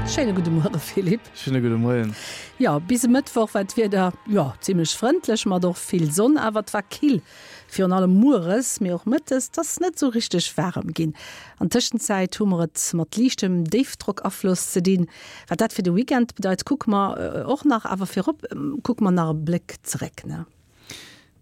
Schéine gudde Muere Philippe. Schéine gudde Moien. Jo, bis e Mëttwoch war d'Wieder, jo, zimmlech frëndlech mat och vill Sonn, awer et war kill, virun allem mueres, mee och mëttes, et ass net esou richteg waarem ginn. An Tëschenzäit hu mer et mat liichtem Déifdrockafloss ze dinn. Wat dat fir de Weekend bedeit, kucke mer och nach, awer virop kucke mer nach e Bléck zeréck, ne?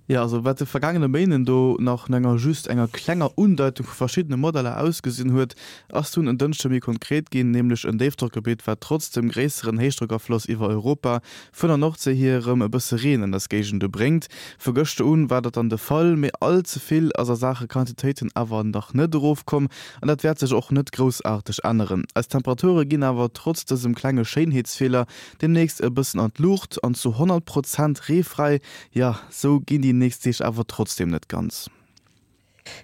Jo, also wat de vergaangene Méinden do nach no enger just enger klenger Undeitung vu verschiddene Modeller ausgesinn huet, ass dunn en Dënschde méi konkret ginn, nämlech en Déifdrockgebitt, wat trotz dem gréisseren Héichdrockafloss iwwer Europa vun der Nordséi hier erëm e bësse Reen an eis Géigende bréngt. Vu gëschter un war dat dann de Fall, mee all ze vill ass a Saache Quantitéiten awer nach net erofkomm an dat wäert sech och net groussaarteg änneren. Eis Temperature ginn awer trotz dësem klenge Schéinheetsfeeler demnächst e bëssen an d'Luucht an zu 100 Prozent reefräi Jo, sou ginn déi nächst Deeg awer trotzdem net ganz.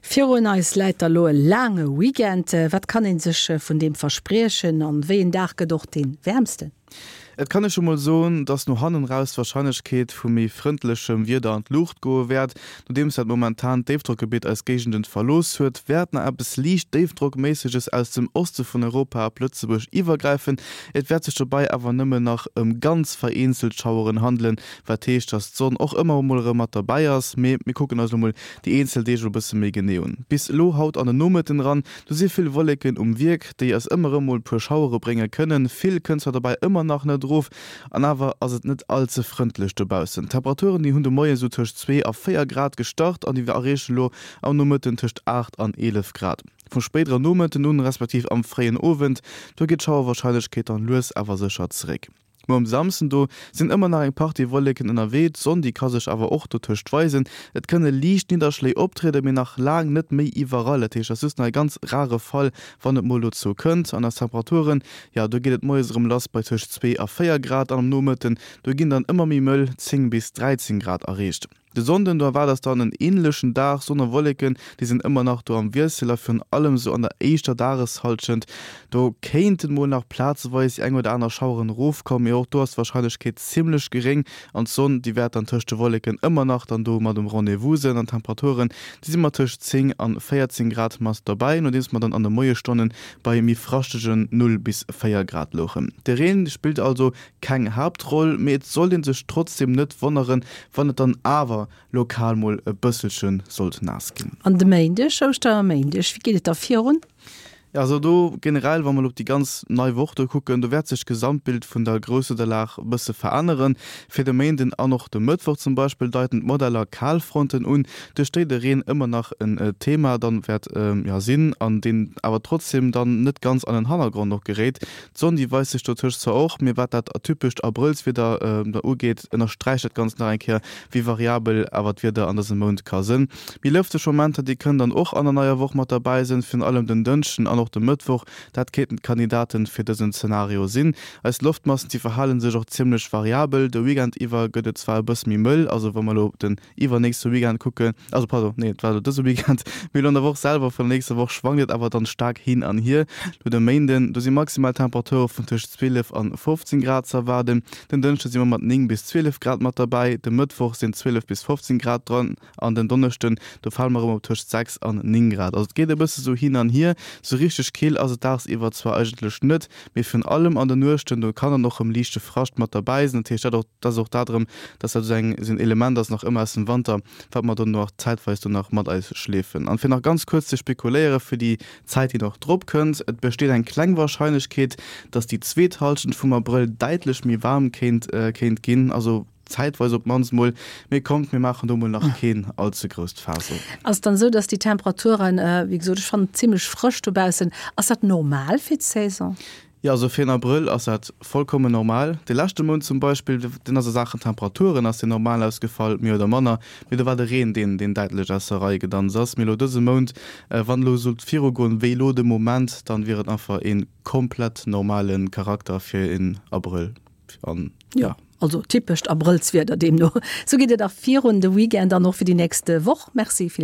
Virun eis läit da lo e laange Weekend. Wat kann ee sech vun deem verspriechen an wéi een Dag gëtt och dee wäermsten? Et kann ee scho mol soen, dass no hannen raus d'Warscheinlechkeet vu méi frëndlechem Wieder an d'Luucht goe wäert. Nodeems dat momentant Déifdrockgebitt eis Géigenden verlooss huet, wäert nach eppes liicht Déifdrockméisseges aus dem Oste vun Europa op Lëtzebuerg iwwergräifen. Et wäert sech dobäi awer nëmme nach ëm ganz vereenzelt Schaueren handelen, Wat heescht, dass d'Sonn och ëmmer emol erëm mat derbäi ass. Mee mir kucken eis elo mol déi eenzel Deeg elo e bësse méi genee un. Bis elo haut an den Nomëtten eran, do si vill Wolleken um Wierk, déi eis ëmmer erëm mol e puer Schauere brénge kënnen. Vill kënnt zwar dobäi ëmmer nach net erof, an awer ass et net all ze frëndlech dobaussen. D'Temperaturen, déi hunn de Moie sou tëscht 2 a 4 Grad gestart an déi erreechen elo am Nomëtten tëscht 8 an 11 Grad. Vum spéidere Nomëtten un, respektiv am fréien Owend, do geet d'Schauerwarscheinlechkeet dann lues awer sécher zeréck. Muer um Samsden do sinn ëmmer nach eng Partie Wolleken ënnerwee, d'Sonn déi ka sech awer och dotëscht weisen. Et kënne liicht Nidderschléi optrieden, mee nach laang net méi iwwerall. Dat heescht, et ass just nach e ganz rare Fall, wann et mol dozou kënnt. An eis Temperaturen, jo do geet et moies erëm lass bei tëscht 2 a 4 Grad an am Nomëtten do ginn dann ëmmer méi mëll 10 bis 13 Grad erreecht. De Sonnden, do erwaart eis dann en änlechen Dag, Sonn a Wolleken, déi sinn ëmmer nach do am Wiessel a virun allem sou an der éischter Dageshallschent, do kéinten mol nach plazeweis déi eng oder aner Schaueren erofkommen, mee och do ass d'Warscheinlechkeet zimmlech geréng an d'Sonn, déi wäert dann tëscht de Wolleken ëmmer nach dann do mat um Rendez-vous sinn an d'Temperaturen, déi si mat tëscht 10 an 14 Grad mat dobäi, nodeems mer dann an de Moiesstonnen bei méi fraschtegen 0 bis 4 Grad louchen. De Reen spillt also keng Haaptroll, mee et sollt een sech trotzdem net wonneren, wann et dann awer lokal mol e bësselche sollt naass ginn. An de Méindeg, Ouschterméindeg, wéi geet et da virun? Jo, also do generell, wa mer elo op déi ganz nei Woch do kucken, do wäert sech d'Gesamtbild vun der Grousswiederlag e bësse veränneren. Fir de Méinden an och de Mëttwoch zum Beispill deiten d'Modeller Kalfronten un, duerch déi de Reen ëmmer nach en Thema dann wäert, jo, sinn an deen awer trotzdem dann net ganz an den Hannergrond och geréit. D'Sonn déi weist sech dotëscht zwar och, mee wat dat atypescht Abrëllswieder da ugeet, ënnersträicht dat Ganzt nach eng Kéier, wéi variabel awer d'Wieder an dësem Mount ka sënn. Méi lëfteg Momenter déi kënnen dann och an der neier Woch mat derbäi sënn, virun allem den Dënschden an och de Mëttwoch. Dat kéinten d'Kandidaten fir dësen Zenario sinn. Eis Loftmassen déi verhale sech och zimmlech variabel. De Weekend iwwer gëtt et zwar e bësse méi mëll, also wa mer elo op den iwwernächste Weekend kucken, also pardon, nee, et war elo dëse Weekend, mee elo an der Woch selwer vun der nächster Woch schwankt et awer dann staark hin an hier. Lo de Méinden, do si maximal Temperature vun tëscht 12 an 15 Grad ze erwaarden, den Dënschde si mer mat 9 bis 12 Grad mat derbäi, de Mëttwoch sinn 12 bis 15 Grad dran an den Donneschden, do fale mer erëm op tëscht 6 an 9 Grad. Also et geet e bësse sou hin an hier, sou richteg kill ass et dagsiwwer zwar eigentlech net, mee virun allem an den Nuechten, do kann dann och erëm liichte Frascht mat derbäi sinn. Dat heescht, dat och, dat ass och dat erëm, dass dat esou eng, esou en Element ass nach ëmmer aus dem Wanter, wat mer dann nach zäitweis do nach mat eis schleefen. An fir nach ganz kuerz ze spekuléiere fir déi Zäit, déi nach drop kënnt, Et besteet eng kleng Warscheinlechkeet, dass déi zweet Hallschent vum Abrëll däitlech méi waarm kéint, kéint ginn, also zäitweis op d'mannst mol. Mee kommt, mir maachen do mol nach keen all ze grousst Faass op. Ass et dann esou, dass déi Temperaturen, wéi gesot, ech fannen et zimmlech frësch dobaussen, ass dat normal fir d'Saison? Jo, also fir en Abrëll ass dat vollkommen normal. De leschte Mount zum Beispill, deen ass a Saachen Temperaturen ass deen normal ausgefall, méi oder manner, mee do war de Reen deen, deen däitlech aus der Rei gedanzt ass. Mee elo dëse Mount, wann elo sollt virugoen wéi elo de Moment, dann wier et einfach ee komplett normale Charakter fir en Abrëll an jo. Also typescht Abrëllswieder deemno. Sou geet et och virun de Weekend an och fir déi nächst Woch. Merci Philippe.